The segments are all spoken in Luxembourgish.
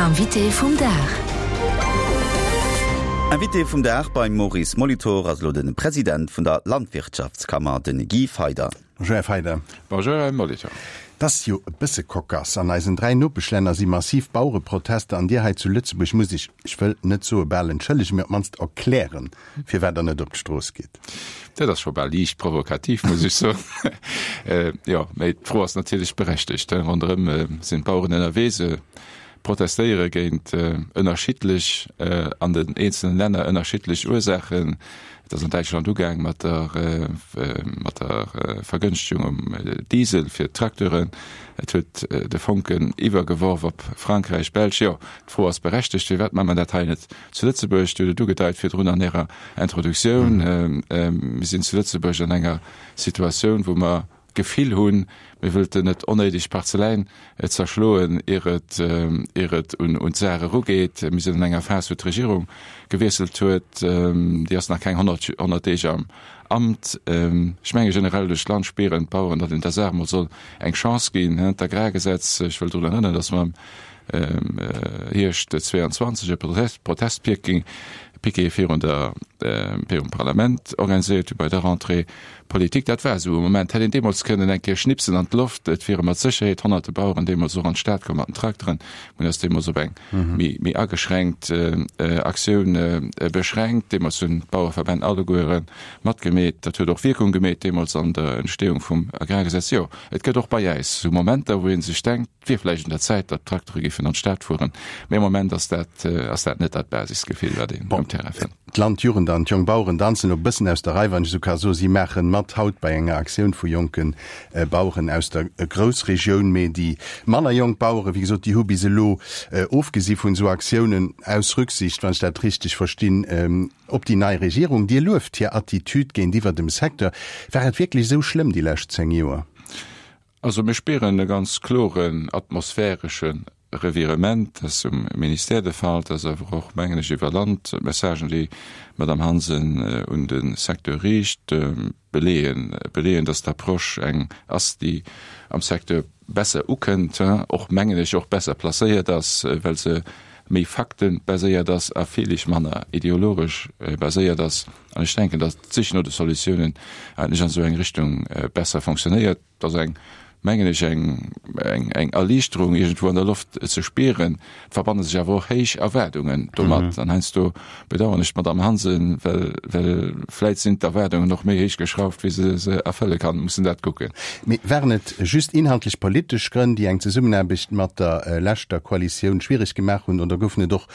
Invité vum Dag. Invité vum Dag beim Maurice Molitor ass elo de President vun der Landwirtschaftskammer, de Guy Feyder. Bonjour Här Feyder. Bonjour Här Molitor. Et ass jo e bësse cocasse, an eisen 3 Nopeschlänner si massiv Bauereprotester an Dir hei zu Lëtzebuerg musst Iech, ech wëll net soe bal entschëllegen, mee op d'mannst erklären, firwat Der net op d'Strooss gitt. Dat ass scho bal liicht provokativ, muss ech soen. Jo, mee d'Fro ass natierlech berechtegt. Ronderëm sinn d'Baueren ënnerwee, se protestéiere géint ënnerschiddlech, an den eenzelen Länner ënnerschiddlech Ursaachen. Et ass an Däitschland ugaang mat der, mat der Vergënschtegung um Diesel fir d'Tracteuren. Et huet de Fonken iwwergeworf op Frankräich, Belsch. Jo, d'Fro ass berechtegt, Firwat maache mer dat hei net zu Lëtzebuerg? Dir hutt et ugedeit virdrun an Ärer Introduktioun. Mir sinn zu Lëtzebuerg an enger Situatioun, wou mer d'Gefill hunn, mir wëllten net onnéideg Parzeläin zerschloen, ier et, ier et un d'Saach erugeet. Mir sinn an enger Phas, wou d'Regierung gewiesselt huet, déi ass nach keng 100, 100 Deeg am Amt. Ech menge generell duerch d'Land spieren d'Baueren, datt een der Saach emol soll eng Chance ginn. D'Agrargesetz, ech wëll drun erënneren, datt mer am Hierscht 22 e Protestpiquet virun der, virum Parlament organiséiert hu bei der Rentrée politique. Dat war esou e Moment, hätt een deemools kënnen eng Kéier schnipsen an d'Loft, et wiere mat Sécherheet honnerte Baueren deemools och an d'Stad komm mat den Trakteren. Mir hunn eis deemools op eng méi ageschränkt Aktioun beschränkt. Deemools hunn d'Bauereverbänn alleguere matgemeet. Dat huet och Wierkung gemeet deemools an der Entstehung vum Agrargesetz. Jo, et gëtt och bei äis esou Momenter, wou ee sech denkt, Et wier vläicht un der Zäit, datt d'Traktere géifen an d'Stad fueren, mee am Moment ass dat, ass dat net dat Basisgefill, wat een um Terrain fënnt. D'Landjugend an d'Jonk Baueren danzen elo e bëssen aus der Rei, wann ech esou ka soen. Si maachen mat haut bei enger Aktioun vu jonke Baueren aus der Groussregioun. Mee déi manner jonk Baueren, wéi gesot, déi hu bis elo, ofgesi vun esou Aktiounen, aus Rücksicht, wann ech dat richteg verstinn, op déi nei Regierung. Dir lueft hir Attitüd géintiwwer dem Secteur. War et wierklech esou schlëmm déi lescht 10 Joer? Also mir spieren e ganz kloren atmosphäresche Revirement. Dat ass um Ministère de Fall, dat ass awer och, mengen ech, iwwer Land. D'Messagen, déi d'Madame Hansen un de Secteur riicht, beleeën, beleeën, datt d'Approche eng ass, déi am Secteur besser ukënnt, och, mengen ech, och besser placéiert ass, well se méi faktebaséiert ass a villich manner ideologesch baséiert ass. An ech denken, datt d'Sich no de Solutiounen eigentlech an esou eng Richtung besser fonctionnéiert. Et ass eng, mengen ech, eng, eng, eng Erliichterung iergendwou an der Loft ze spieren. Et verbanne sech awer och héich Erwaardungen domat. An heiansdo bedauern ech d'Madame Hansen, well, well vläit sinn d'Erwaardungen och méi héich geschrauft, wéi se se erfëlle kann. Mussen dat kucken. Mee waren et just inhaltlech politesch Grënn, déi eng Zesummenaarbecht mat der leschter Koalitioun schwiereg gemaach hunn, oder goufen et och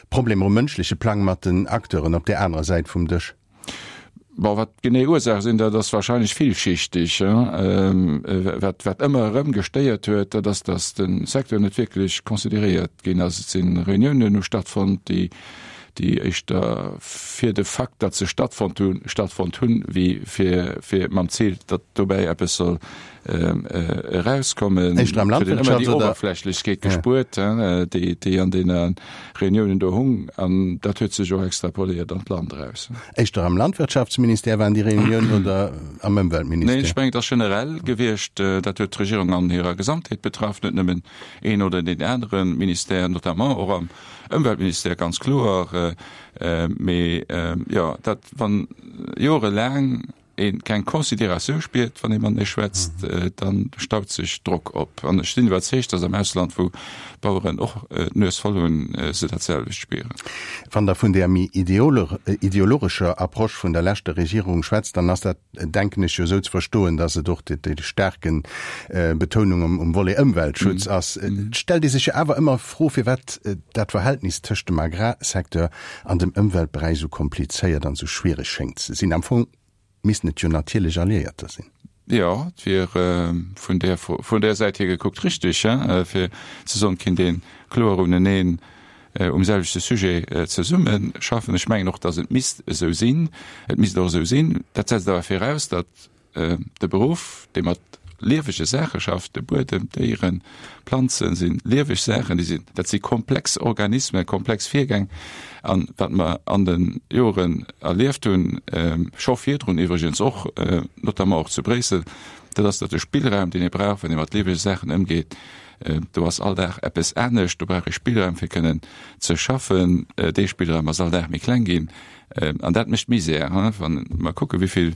Problemer um mënschleche Plang mat den Acteuren op där anerer Säit vum Dësch? Bon, wat d'genee Ursaach sinn, dat ass wahrscheinlech villschichteg. Wat, wat ëmmer erëm gestéiert huet, dat ass, datt de Secteur net wierklech consideréiert ginn ass. Et si Reuniounen hu stattfonnt, déi, déi éischter fir de Fakt, datt se stattfonnt hunn, stattfonnt hunn, wéi fir, fir mam Zil, datt dobäi eppes soll erauskommen. Éischter am Huet een ëmmer déi Landwirtschafts oder? Oberflächlechkeet gespuert, déi, déi an deene Reuniounen do hung. An dat huet sech och extrapoléiert an d'Land eraus. Éischter am Landwirtschaftsministère waren déi Reuniounen oder am Ëmweltministère? Neen, ech mengen, et ass generell gewiescht. Dat huet d'Regierung an hirer Gesamtheet betraff, net nëmmen een oder deen anere Ministère, notamment och am Ëmweltministère, ganz kloer. Mee jo, dat, wann jorelaang ee keng Considératioun spiert, wann ee matenee schwätzt, dann staut sech Drock op. An ech sinn iwwerzeegt, datt am Ausland, wou d'Baueren och d'Nues voll hunn, se dat selwecht spieren. Wann Der vun där méi ideologescher Approche vun der leschter Regierung schwätzt, dann ass dat, denken ech, jo esou ze verstoen, datt et och déi staarken Betounung um Volet Ëmweltschutz ass. Et stellt ee sech jo awer ëmmer d'Fro, firwat dat Verhältnis tëscht dem Agrarsecteur an dem Ëmweltberäich esou komplizéiert an esou schwiereg schéngt ze sinn. Am Fong missten et jo natierlech Alliéierter sinn. Jo, et wier vun där vun där Säit hier gekuckt richtig, fir ze soen, et kinnt ee kloer uneneen um selwechte Sujet zesumme schaffen. Ech mengen och, datt et misst esou sinn. Et misst och esou sinn. Dat setzt awer viraus, datt De Beruff, dee mat liewege Saache schafft, de Buedem, d'Déieren, d'Planzen, si lieweg Saachen, déi sinn, dat si komplex Organismen, komplex Virgäng. An wat mer an de Joren erlieft hunn, scho virdrun iwwregens och, notamment och zu Bréissel, dat ass, datt de Spillraum, deen ee brauch, wann ee mat liewege Saachen ëmgeet, Do ass all Dag eppes anescht. Do brauch ee Spillraum, fir kënnen ze schaffen. Dee Spillraum ass all Dag méi kleng ginn. An dat mécht Misär, wa mer kucken, wéi vill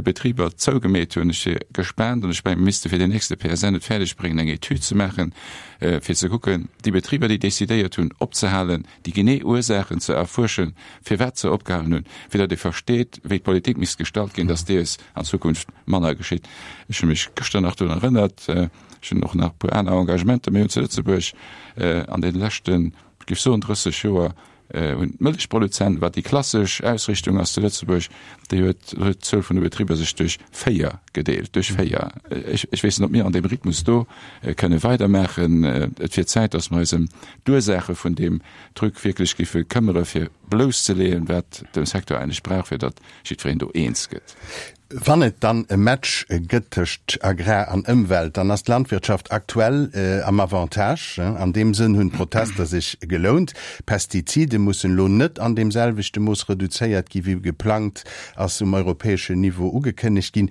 Betriber zougemeet hunn. Ech si gespaant an ech mengen, mir misste fir den nächste PSN et fäerdeg bréngen, eng Etüd ze maachen, fir ze kucken, déi Betriber, déi decidéiert hunn opzehalen, déi genee Ursaachen ze erfuerschen, firwat se opgehalen hunn, fir datt ee versteet, wéi d'Politik misst gestalt ginn, datt dees an Zukunft manner geschitt. Ech hu mech gëschter nach drun erënnert, ech hunn och nach e puer aner Engagementer, mir hunn zu Lëtzebuerg an deene leschten, ech géif soen 30 Joer, hunn d'Mëllechproduzenten, wat déi klassesch Ausrichtung ass zu Lëtzebuerg, déi huet huet d'Zuel vun de Betriber sech duerch 4 gedeelt, duerch 4. Ech ech weess net, ob mir an deem Rhythmus do kënne weidermaachen. Et wier Zäit, datt mer eis ëm d'Ursaache vun deem Truc wierklech géife këmmere fir blousszeleeën, wat de Secteur eigentlech brauch, fir datt jiddwereen do eens gëtt. Wann et dann e Match gëtt tëscht Agrar an Ëmwelt, dann ass d'Landwirtschaft aktuell am Avantage. An deem Sënn hunn d'Protester sech gelount. Pestizide mussen elo net an deem selwechte Mooss reduzéiert gi wéi geplangt, ass um europäeschen Niveau ugekënnegt ginn.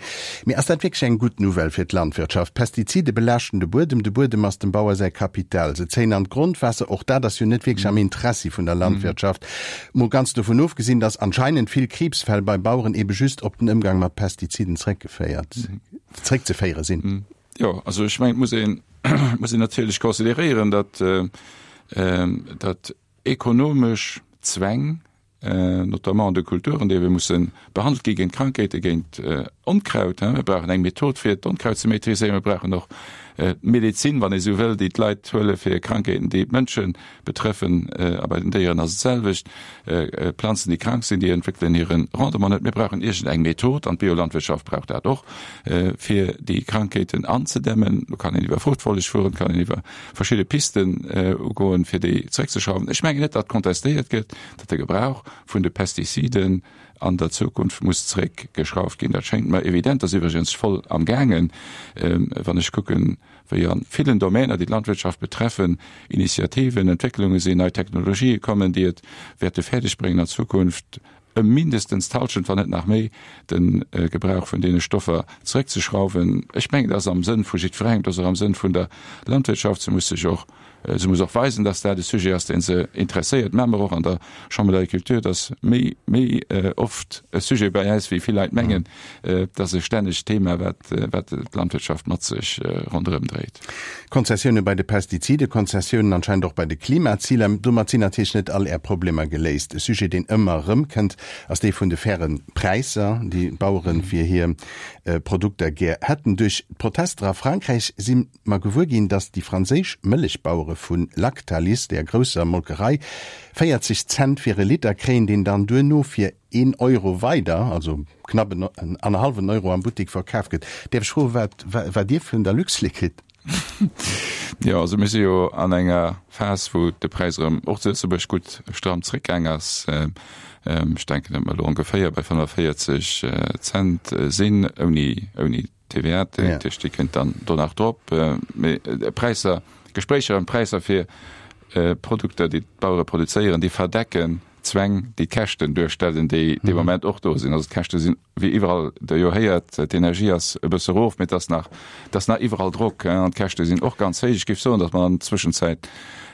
Mee ass dat wierklech eng gutt Nouvelle fir d'Landwirtschaft? Pestizide belaaschten de Buedem, de Buedem ass dem Bauer säi Kapital. Se zéien an d'Grondwaasser, och dat ass jo net wierklech am Interessi vun der Landwirtschaft. Mol ganz dovun ofgesinn, dass anscheinend vill Kriibsfäll bei Baueren ebe just op den Ëmgang mat Pestiziden zréckgeféiert, zréckzeféiere sinn. Jo, also ech mengen, et muss een, muss een natierlech consideréieren, datt, datt ekonomesch Zwäng, notamment an de Kulturen, déi ebe musse behandelt gi géint Krankheete, géint Onkraut, mir brauchen eng Method fir d'Onkraut ze maîtriséieren, mir brauchen och d'Medezin, wann ee sou wëll, déi d'Leit huele fir Krankheeten, déi d'Mënsche betreffen. A bei den Déieren ass et d'selwecht. Planzen, déi krank sinn, déi entwéckelen hire Rendement net. Mir brauchen iergend eng Method, an d'Biolandwirtschaft brauch dat och, fir déi Krankheeten anzedämmen. Do kann een iwwer Fruchtfolleg fueren, kann een iwwer verschidde Pisten ugoen, fir déi zeréckzeschrauwen. Ech mengen net, datt kontestéiert gëtt, datt de Gebrauch vun de Pestiziden an der Zukunft muss zeréckgeschrauft ginn. Dat schéngt mer evident. Dat ass iwwregens voll am gaangen, wann ech kucken, wéi a villen Domäner, déi d'Landwirtschaft betreffen, Initiativen, Entwécklunge sinn, nei Technologië kommen, déi et wäerte fäerdeg bréngen an Zukunft ëm mindestens d'Halschent, wann net nach méi, de Gebrauch vun deene Stoffer zeréckzeschrauwen. Ech mengen, dat ass am Sënn vu jiddwerengem, dat ass och am Sënn vun der Landwirtschaft. Se muss sech och Se muss och weisen, dass dat e Sujet ass, dee se interesséiert. Maache mer och an der Chambre d'Agriculture, dass méi, méi oft e Sujet bei äis, wéi vill Leit mengen. Et ass e stännegt Thema, wat, wat d'Landwirtschaft mat sech ronderëm dréit. Konzessioune bei de Pestiziden, Konzessiounen anscheinend och bei de Klimaziler. Domat sinn natierlech net all Är Problemer geléist. E Sujet, deen ëmmer erëmkënnt, ass dee vun de faire Präisser, déi d'Bauere fir hir Produkter gär hätten. Duerch d'Protester a Frankräich si mer gewuer ginn, datt déi franséisch Mëllechbauere vu Lactalis, där grousser Molkerei, 40 Cent fir e Liter kréien, deen dann duerno fir een Euro weider, also knapp en annerhallwen Euro am Buttek verkaf gëtt. Däerf ech froen, wat wat Dir vun der Luxlait kritt? Jo, also mir si jo an enger Phas, wou de Präis erëm och zu Lëtzebuerg gutt stramm zréckgaang ass. Ech denken, datt mer elo ongeféier bei 45 Cent sinn, ouni ouni TVA, déi kënnt dann do nach drop. Mee Präisser, Gespréicher ëm Präisser fir Produkter, déi d'Bauere produzéieren, déi verdecken d'Zwäng, déi d'Käschten duerstellen, déi dee Moment och do sinn. Also d'Käschte sinn, wéi iwwerall Der jo héiert, d'Energie ass e bësse erof, mee et ass nach, et ass nach iwwerall Drock an d'Käschte sinn och ganz héich. Ech géif soen, datt mer an der Zwëschenzäit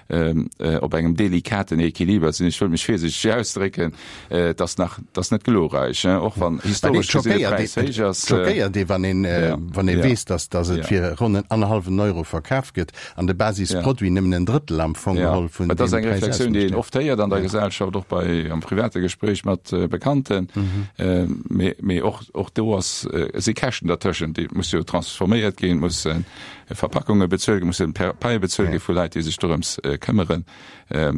op engem delikaten Equiliber sinn. Ech wëll mech virsiichteg ausdrécken, et ass nach, et ass net glorreich, och wann historesch gesinn de Präis héich ass. Et schockéiert ee, wann een, wann ee weess, datt, datt et fir ronn en annerhallwen Euro verkaf gëtt an de Basisproduit nëmmen en Drëttel am Fong geholl vun deem Präis ausmécht. Et ass eng Reflexioun, déi een oft héiert an der Gesellschaft, och bei, am private Gespréich mat Bekannten. Mee, mee och, och do ass, si Käschten dertëschent, déi musse jo transforméiert ginn, mussen Verpackunge bezuelt ginn, mussen Paie bezuelt gi vu Leit, déi sech dorëms këmmeren.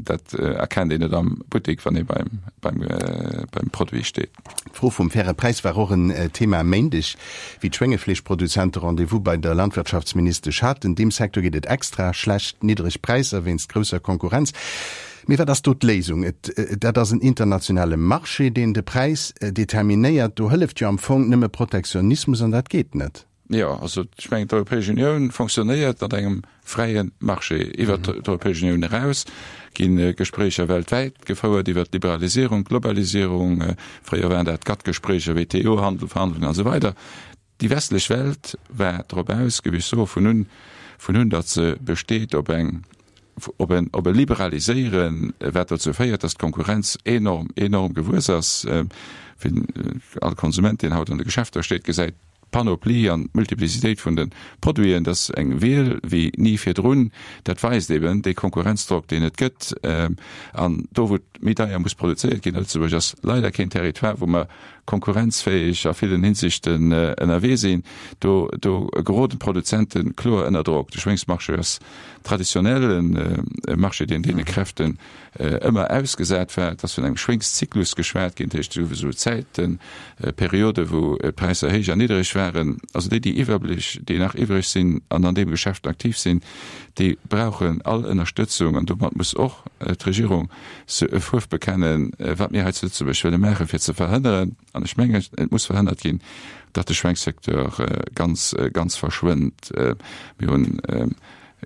Dat erkennt een net am Buttek, wann ee beim, beim, beim Produit steet. D'Fro vum faire Präis war och en Thema e Méindeg, wéi d'Schwéngefleeschproduzente Rendez-vous bei der Landwirtschaftsministesch haten. Deem Secteur geet et extra schlecht, niddreg Präisser wéinst grousser Konkurrenz. Mee wat ass do d'Léisung? Et, dat ass en internationale Marché, deen de Präis determinéiert. Do hëlleft jo am Fong nëmme Protektionismus, an dat geet net. Jo, also ech mengen, d'Europäesch Unioun fonctionnéiert mat engem fräie Marché. Iwwert d'Europäesch Unioun eraus gi Gespréicher weltwäit gefouert iwwert d'Liberalisierung, d'Globalisierung. Fréier waren dat GATT-Gespréicher, WTO-Handel, Verhandlungen a sou weider. Déi westlech Welt war drop aus, géif ech soen, vun un. vun hunn, datt se besteet op eng, op en, op e Liberaliséieren, wat dozou féiert, datt d'Konkurrenz enorm, enorm gewuess ass. Wien, all Konsument, deen haut an de Geschäfter steet, gesäit d'Panoplie an d'Multiplicitéit vun de Produiten, dat ass eng Wiel wéi ni virdrun. Dat weist eben dee Konkurrenzdrock, deen et gëtt. An do, wou et méi deier muss produzéiert ginn, a Lëtzebuerg ass leider keen Territoire, wou mer konkurrenzfäeg a villen Hinsichten ënnerwee sinn, do, do geroden d'Produzente kloer ënner Drock. De Schwéngsmarché ass traditionell e Marché, deen deene Kräften ëmmer ausgesat war. Et ass vun engem Schwéngszyklus geschwat ginn, dat heescht souwisou Zäiten, Periode wou d'Präisser héich an niddereg waren. Also déi, déi iwwerblich, déi nach iwwreg sinn an an deem Geschäft aktiv sinn, déi brauchen all Ënnerstëtzung an domat muss och d'Regierung e Fuerf bekennen, wat mir hei zu Lëtzebuerg wëlle maachen, fir ze verhënneren, an ech mengen, et muss verhënnert ginn, datt de Schwéngssecteur ganz, ganz verschwënnt. Mir hunn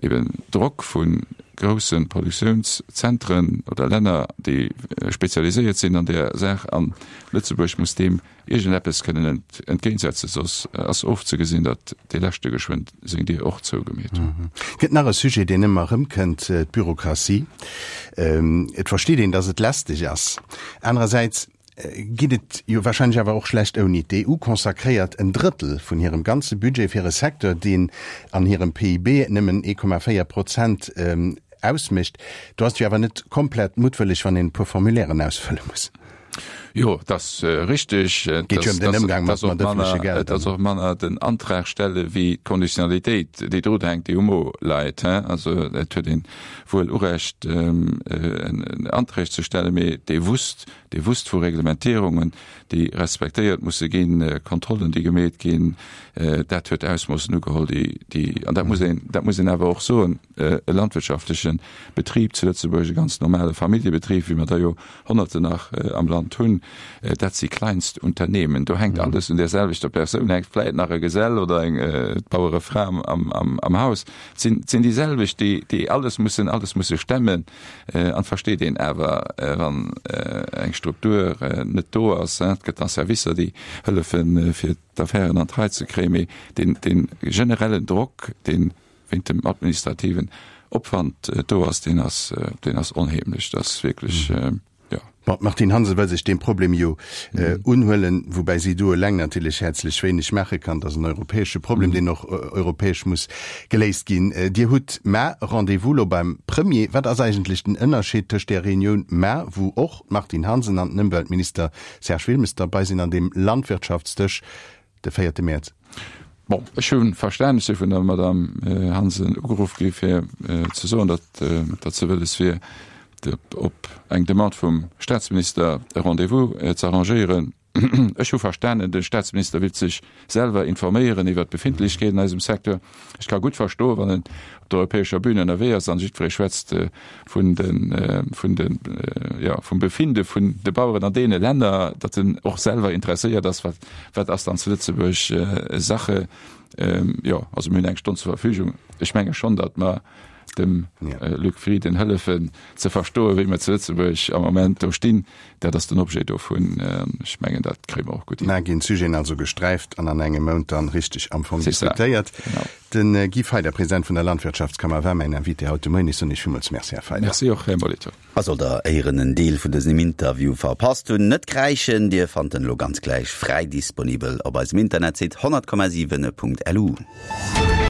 eben Drock vu grousse Produktiounszentren oder Länner, déi spezialiséiert sinn an där Saach, an Lëtzebuerg muss deem iergendeppes kënnen entgéintsetzen, soss ass ofzegesinn, datt dee leschte geschwënn seng Dier och zougemeet huet. Gëtt nach e Sujet, deen ëmmer erëmkënnt, d'Bürokratie. Et versteet een, datt et lästeg ass. Anerersäits geet et jo wahrscheinlech awer och schlecht ouni. D'EU consacréiert en Drëttel vun hirem ganze Budget fir e Secteur, deen an hirem PIB nëmmen 1,4 Prozent ausmécht. Do ass et jo awer net komplett muttwëlleg, wann een e puer Formulairen ausfëlle muss. Jo, et ass richteg. Et geet jo ëm den Ëmgang mat mat ëffentleche Gelder. Et ass och manner den Antrag stelle wéi d'Konditionalitéit, déi drun hänkt, déi um Mo leit. Also et huet een wuel Urecht, en Anträg ze stellen, mee dee wusst, dee wusst vu Reglementierungen, déi respektéiert musse ginn, Kontrollen, déi gemeet ginn, dat huet Ausmoossen ugeholl, déi, déi, an dat muss een, dat muss een awer och soen, e landwirtschaftleche Betrib zu Lëtzebuerg, e ganz normale Familljebetrib, wéi mer der jo Honnerten nach am Land hunn, dat si Kleinstunternehmen. Do hänkt alles un där selwechter Persoun, hänkt vläit nach e Gesell oder eng Bauerefra am, am Haus. Et sinn, et sinn déi selwecht, déi, déi alles mussen, alles musse stemmen. An et versteet een awer, wann eng Struktur net do ass, et gëtt da Servicer, déi hëllefen, fir d'Affären an d'Rei ze kréien, mee deen, dee generellen Drock, dee wéint dem administrativen Opwand do ass, deen ass, deen ass onheemlech. Dat ass wierklech, jo. Bon, d'Martine Hansen wëll sech deem Problem jo unhuelen, woubäi si do eleng natierlech häerzlech wéineg maache kann. Dat ass en europäesche Problem, deen och europäesch muss geléist ginn. Dir hutt mar Rendez-vous lo beim Premier. Wat ass eigentlech den Ënnerscheed tëscht där Reunioun mar, wou och d'Martine Hansen an den Ëmweltminister Serge Wilmes derbei sinn, an deem Landwirtschaftsdësch de véierte Mäerz? Bon, ech hu verstan, ech si vun der Madame Hansen ugeruff gi fir ze soen, datt datt se wëlles wier, op eng Demande vum Staatsminister e Rendez-vous ze arrangéieren. Ech hu verstanen, de Staatsminister willt sech selwer informéieren iwwert d'Befindlechkeeten an eisem Secteur. Ech ka gutt verstoen, wann en op der europäescher Bühn ënnerwee ass an jiddweree schwätzt vun de, vun de, jo, vum Befinde vun de Baueren an deene Länner, datt en och selwer interesséiert ass, wat, wat ass dann zu Lëtzebuerg Sache. Jo, also mir hunn eng Stonn zur Verfügung. Ech menge schonn, datt mer dem Luc Frieden hëllefen ze verstoen, wéi mer zu Lëtzebuerg am Moment do stinn. Dat ass den Objet dovun. Ech mengen, dat kréie mer och gutt hin. Mä ginn d'Sujeten also gesträift an an engem Mount dann richteg am Fong diskutéiert. De Guy Feyder, President vun der Landwirtschaftskammer, war mäin Invité haut de Moien. Ech soen Iech villmools Merci, Här Feyder. Merci och, Här Molitor. A sollt der éieren en Deel vun dësem Interview verpasst hunn, net kräischen, Dir fannt en elo ganz gläich fräi disponibel op eisem Internetsite 100,7.lu.